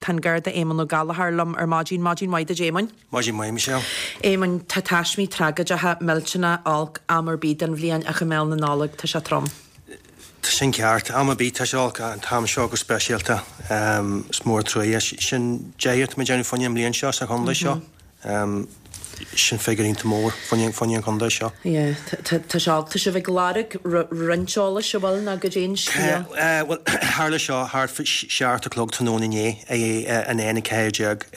Tá an Garda Éamonn Ó Gallchóir liom ar maidin. Maidin mhaith duit Éamoinn. Maidin mhaith, Michelle. Éamoinn, tá taismí tragóideacha, millteanach, olc am ar bith den bhliain ach i mbéal na Nollag tá sé trom. Tá sin ceart. Am ar bith tá sé olc ach an t-am seo go speisialta. Is mór an truaighe. Sin deichiú atá muid ag déanamh fá choinne an mbliain seo sa chontae seo. Sin figiúr iontach mór fá choinne an chontae seo. Yeah, tá sé olc. Tá sibh ag lorg roinnt eolais, an bhfuil, nó goidé an scéal? Bhuel, tharla seo thart fá 7 a chlog tráthnóna inné ar an N14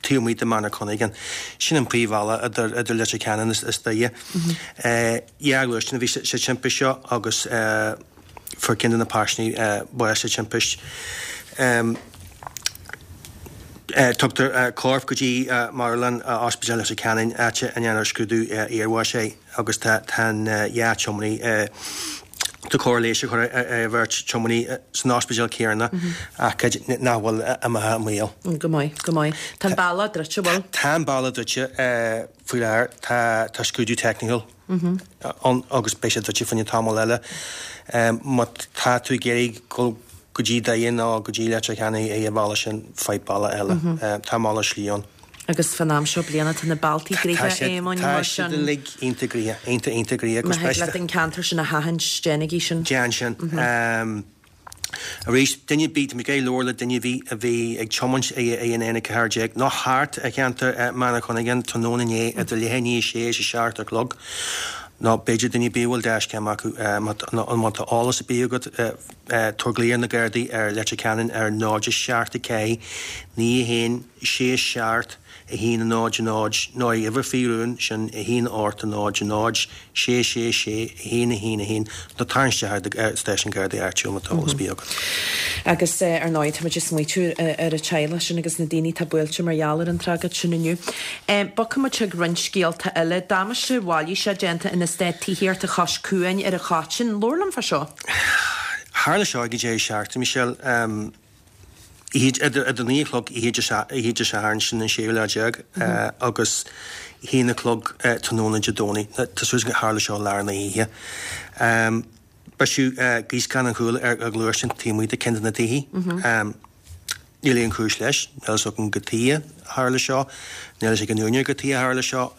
taobh amuigh de Manorcunningham. Sin an príomhbhealach idir Leitir Ceanainn is Doire. Dhá ghluaisteán a bhí sa timpist seo agus fuair ceann de na paisinéirí bás sa timpist. Tugtar corp go dtí marthanlann Ospidéal Leitir Ceanainn, áit a ndéanfar scrúdú iarbháis air agus tá an dhá tiománaí tá cóir leighis á chur ar an bheirt tiománaí san ospidéal céanna ach nach bhfuil imithe i mbaol. Go maith, go maith. Tá an bealach druidte, an bhfuil? Tá an bealach druidte faoi láthair. Tá scrúdú teicniúil ann agus beidh sé druidte fá choinne tamall eile. Má tá tú ag iarraidh dul go dtí Doire nó go dtí Leitir Ceanainn ar an bhealach sin, faigh bealach eile. Tá malairt slí ann. Agus fán am seo bliana tá na bealtaí gnoitheach, a Éamoinn, mar sin. Tá siad uilig iontach gnoitheach, iontach, iontach gnoitheach. Má thig leat an ceantar sin a sheachaint, déanaigí sin. Déan sin. Arís, duine ar bith, tá mé ag iarraidh labhairt le duine ar bith a bhí ag tiomáint ar an N14 nó thart ar cheantar Manorcunningham tráthnóna inné idir leath i ndiaidh a sé is a 7 a chlog, nó b'fhéidir duine ar bith a bhfuil dashcam acu, má tá eolas ar bith agat, tabhair glao ar na Gardaí ar Leitir Ceanainn ar 0 7 4 9 1 6 7 1 0 0 nó ar uimhir faoi rún, sin 1 8 0 0 6 6 6 1 1 1, nó tar isteach ar stáisiún Gardaí áitiúil má tá eolas ar bith agat. Agus ar ndóigh tá muid ag smaoitiú ar an teaghlach sin agus na daoine atá buailte mar gheall ar an tragóid sin inniu. Bogfaidh muid chuig roinnt scéalta eile. Damáiste mhailíseach déanta in eastát tithíochta Chois Cuain ar an Choitín. Labhair liom fá seo. Tharla seo ag an deireadh seachtaine, Michelle. Idir 9 a chlog oíche Dé Sathairn, sin an séú lá déag, agus 1 a chlog tráthnóna Dé Domhnaigh. Tá súil agam gur tharla seo i lár na hoíche. Briseadh gíoscán an chúil ar ghluaisteán taobh amuigh de ceann de na tithe. Níl aon chúis leis. Níl a fhios agam cad chuige a tharla seo. Níl a fhios ag an úinéir cad chuige a tharla seo.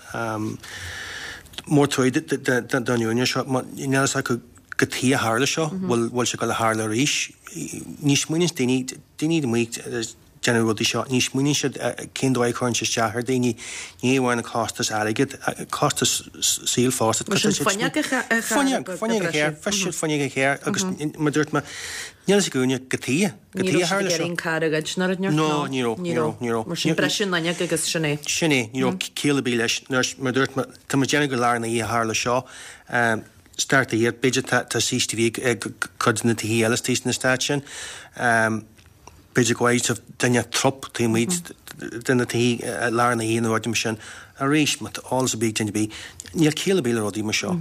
Mór truaí don úinéir seo. Níl a fhios acu cad chuige a tharla seo, bhfuil bhfuil sé ag dul a tharlú arís. Ní smaoiníonn daoine, daoine amuigh ag déanamh rudaí seo, ní smaoiníonn siad cén dóigh a chuireann sé isteach ar daoine, ní amháin an costas airgid, costas saoil fosta. Mar sin fuinneog a Fuinneog, fuinneog a charr, bhris siad fuinneog an chairr agus mar a dúirt mé, níl a fhios ag an úinéir cad chuige, cad chuige a tharla seo. Ní raibh siad ag iarraidh an carr a ghoid nó rud No, ní raibh, ní raibh, ní raibh. Mar sin briseadh an fhuinneog agus sin é. Sin é, ní raibh ciall ar bith leis. Mar a dúirt mé, tá muid ag déanamh gur lár na hoíche a tharla seo. Start the year, b'fhéidir tá CCTV ag cuid de na tithe eile istigh san eastát sin. B'fhéidir go bhfaighidh sibh duine trup taobh amuigh de na tithe i lár na hoíche nó rudaí mar sin. Arís, má tá eolas ar bith ag duine ar bith, níl ciall ar bith le rudaí mar seo.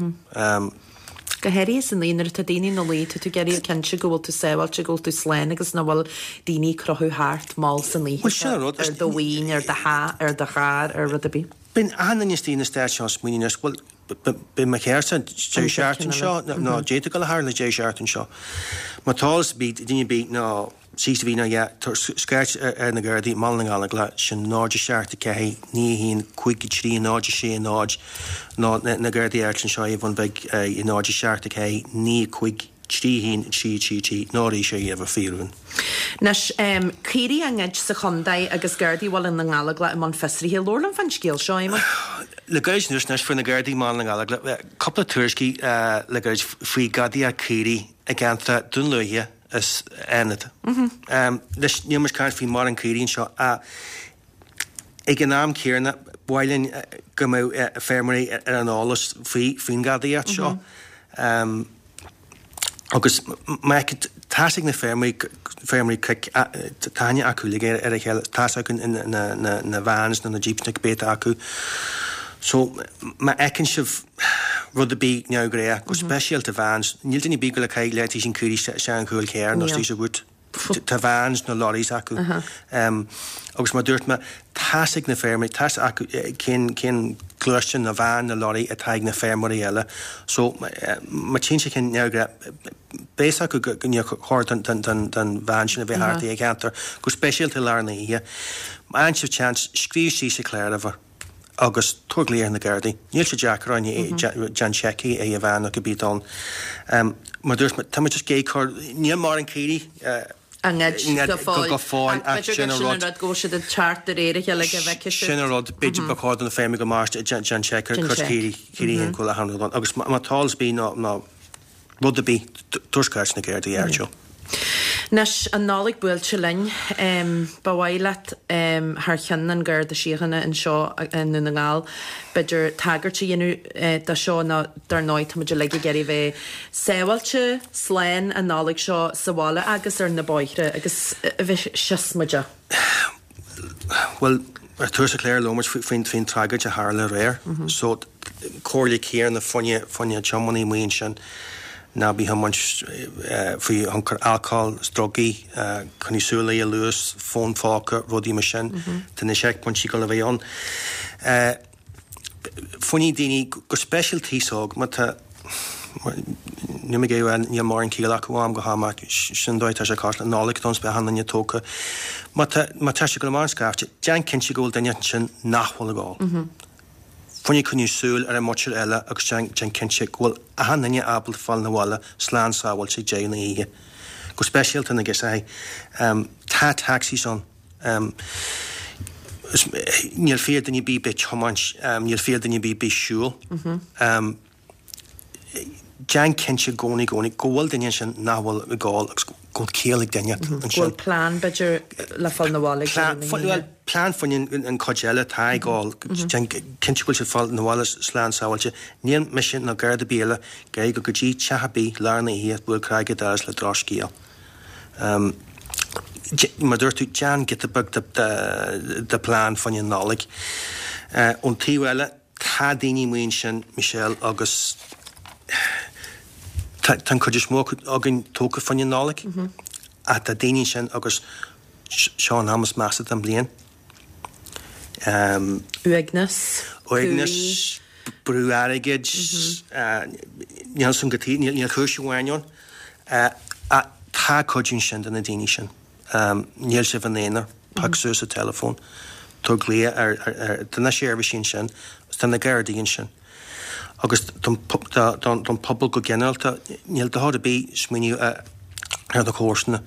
Go háirithe san oíche nuair atá daoine ina luí, tá tú ag iarraidh cinnte go bhfuil tú sábháilte, go bhfuil tú slán agus nach bhfuil daoine ag crochadh thart mall san oíche Bhuel, sin an rud. ar do mhaoin, ar do theach, ar do charr, ar rud ar bith. Bíonn achan duine istigh in eastát seo ag smaoineamh anois, bhuel, Beidh mo charrsa deireadh seachtaine seo nó d'fhéadfadh dul a tharla deireadh seachtaine seo. Má tá eolas ar bith ag duine ar bith nó CCTV nó yeah, tabhair scairt ar na Gardaí i mBaile na nGallóglach, sin 0 7 4 9 1 5 3 0 6 0 nó na Gardaí áitiúla anseo ar an Bhun Bhig 0 7 4 9 5 3 1 3 3 3 nó arís ar uimhir faoi rún. Anois, caoirigh á ngoid sa chontae agus Gardaí Bhaile na nGallóglach i mbun fiosraithe. Labhair liom fán scéal seo, Éamonn. Le gairid anuas anois fuair na Gardaí i mBaile na nGallóglach cúpla tuairiscí le gairid faoi gadaíocht caoirigh i gceantar Dún Lúiche is Fhánada. Anois, níl muid ag caint faoi mórán caoirigh anseo ach ag an am céanna ba mhaith linn go mbeadh feirmeoirí ar an eolas faoin ghadaíocht seo. Agus má tá's ag na feirmeoirí, feirmeoirí cnoic, tá aithne acu uilig ar a chéile, tá's acu na vans nó na jeeps nó cibé atá acu. So má fheiceann sibh rud ar bith neamhghnách, go speisialta vans, níl duine ar bith ag dul ag caitheamh leaitíos an caoirigh isteach an chúl carr nó istigh sa bhoot. Tá vans nó lorries acu. Agus mar a dúirt mé, tá's ag na feirmeoirí, tá's acu cén cén. gluaisteán nó veain nó lorry atá ag na feirmeoirí eile. So má tchíonn sé ceann neamhghnách, beidh a fhios acu go níor chóir don veain sin a bheith thart i gceantar, go speisialta i lár na hoíche. Má fhaigheann sibh seans, scríobh síos an cláruimhir agus tabhair glaoch ar na Gardaí. Níl sé deacair ann, déan seic ar an veain nó cibé atá ann. Mar dúirt mé, tá muid just ag cur, níl mórán caoirigh, á ngoid go fóill. Go fóill, ach sin an rud. B'fhéidir go bhfuil siad ag teacht de réir a chéile go bhfeicfidh siad. Sin an rud, b'fhéidir ba chóir do na feirmeoirí go mairt déan seic ar chuid caoirigh, caoirigh féin go bhfuil achan rud ann. Agus má tá eolas ar bith nó nó rud ar bith, tabhair scairt na Gardaí áitiúil. Anois, an Nollaig buailte linn, ba mhaith leat thar cheann an Gharda Síochána anseo i nDún na nGall, b'fhéidir tagairt a dhéanamh do seo nó dar ndóigh tá muid uilig ag iarraidh bheith sábháilte, slán an Nollaig seo sa bhaile agus ar na bóithre agus a bheith siosmaideach. Bhuel, ar tús an chláir labhair muid faoin faoin tragóid a tharla aréir. So, comhairle céanna fá choinne fá choinne tiománaí amuigh ansin, ná bí ag tiomáint faoi thionchar alcóil is drugaí, coinnigh súil ar an luas, fón phóca, rudaí mar sin. Tá na seicphointí ag dul a bheith ann. Fá choinne daoine, go speisialta aos óg, má tá, níl mé ag iarraidh a rá níl mórán ciall acu ó am go ham ach sin an dóigh atá sé cosúil, Nollaig don beidh achan duine tógtha. Má tá, má tá sé ag dul amach an scaifte, déan cinnte go bhfuil duine ansin nach bhfuil ag ól. Fá choinne coinniú súil ar an muintir eile agus déan, déan cinnte go bhfuil achan duine ábalta fáil 'na bhaile slán sábháilte ag deireadh na hoíche. Go speisialta na girseachaí. Tá taxis ann. Níl fiacha duine ar bith bheith ag tiomáint, níl fiacha duine ar bith bheith ag siúl. Déan cinnte i gcónaí, i gcónaí, go bhfuil duine ansin nach bhfuil ag ól agus go bhfuil ciall ag duine ansin. Go bhfuil plean, b'fhéidir, le fáil 'na bhaile ag deireadh na hoíche. Bhuel, plean fá choinne an chuid eile atá ag ól. Déan cinnte go bhfuil siad fáil 'na bhaile slán sábháilte. Níl mise ná Garda ar bith eile ag iarraidh dul go dtí teach ar bith lár na hoíche ag bualadh cnaig ar an doras le drochscéal. Mar a dúirt tú, déan giota beag de plean fá choinne an Nollaig. Ón taobh eile, tá daoine amuigh ansin, Michelle, agus tá an chuid is mó acu againn tógtha fá choinne an Nollaig, ach tá daoine ansin agus seo an am is measa den bhliain. Uaigneas. Uaigneas, brú airgid, níl san go taobh, níl cúis amháin ann. Ach tá cuidiú ansin do na daoine sin. Níl sibh ina aonar, pioc suas an teileafón, tabhair glaoch ar, tá na seirbhísí ansin, agus tá na Gardaí ansin. Agus don pobal go ginearálta, níl dochar ar bith smaoineamh ar do chomharsana.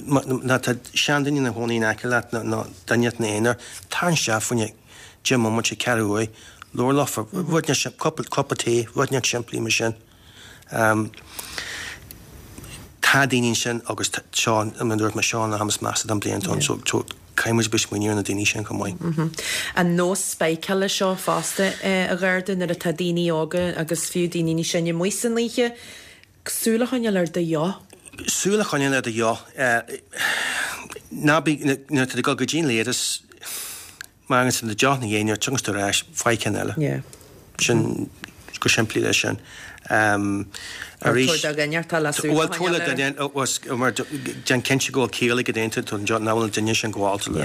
Má tá seanduine ina chónaí in aice leat nó duine ina aonar, tar isteach fá choinne 10 mbomaite, ceathrú uair, labhair leofa, rud inteacht, cupa tae, rud inteacht simplí mar sin. Tá daoine ansin agus seo, mar a dúirt mé, seo an am is measa den bhliain atá ann so caithfidh muid a bheith ag smaoineamh ar na daoine sin chomh maith. An nós spáiceála seo fosta, a Gharda, nuair atá daoine óga agus fiú daoine níos sine amuigh san oíche, Súil a choinneáil ar do dheoch. Súil a choinneáil ar do dheoch. Ná bí, nuair atá tú ag dul go dtí an leithreas, má fhágann tú do dheoch ina dhiaidh, nuair a thiocfas tú ar ais, faigh ceann eile. Yeah. Sin, go simplí leis sin. Arís. Tabhair do dhuine atá le súil a choinneáil air. Bhuel, tabhair le duine, mar déan cinnte go bhfuil ciall ag an duine, nach bhfuil an duine sin gabhálta le,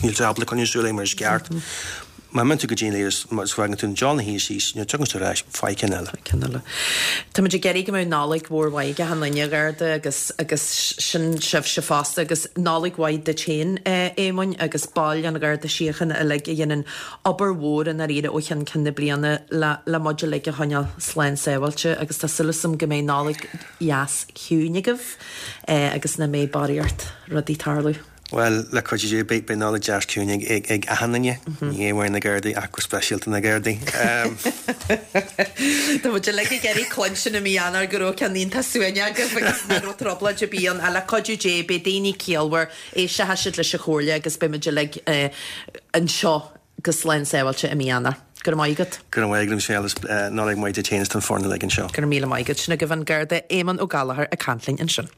níl sé ábalta coinneáil súil air mar is ceart. Má imíonn tú go dtí an leithreas, má fhágann tú an deoch ina dhiaidh síos, nuair a thiocfas tú ar ais, faigh ceann eile. Faigh ceann eile. Tá muid ag iarraidh go mbeadh Nollaig mhór mhaith ag achan duine, a Gharda, agus, agus sin sibhse fosta, agus Nollaig mhaith duit féin, a Éamoinn, agus baill an Gharda Síochána uilig a dhéanann obair mhór i ndáiríre ó cheann ceann na bliana le, le muid uilig a choinneáil slán sábháilte agus tá súil agam go mbeidh Nollaig dheas chiúin agaibh agus nach mbeidh barraíocht rudaí ag tarlú. Bhuel, le cuidiú Dé, beidh Nollaig deas ciúin ag achan duine, ní amháin na Gardaí ach go speisialta na Gardaí. Tá muid uilig ag iarraidh cluinstin i mí Eanáir go raibh ceann iontach suaimhneach agaibh agus nach raibh trioblóid ar bith ann. Ach le cuidiú Dé, beidh daoine ciallmhar, éistfidh siad leis an chomhairle agus beidh muid uilig anseo go slán sábháilte i mí Eanáir. Go raibh maith agat. Go raibh maith agat, Michelle, is Nollaig mhaith duit féin is don foireann uilig anseo. Go raibh míle maith agat. Sin agaibh an Garda Éamonn Ó Gallchóir ag caint linn ansin.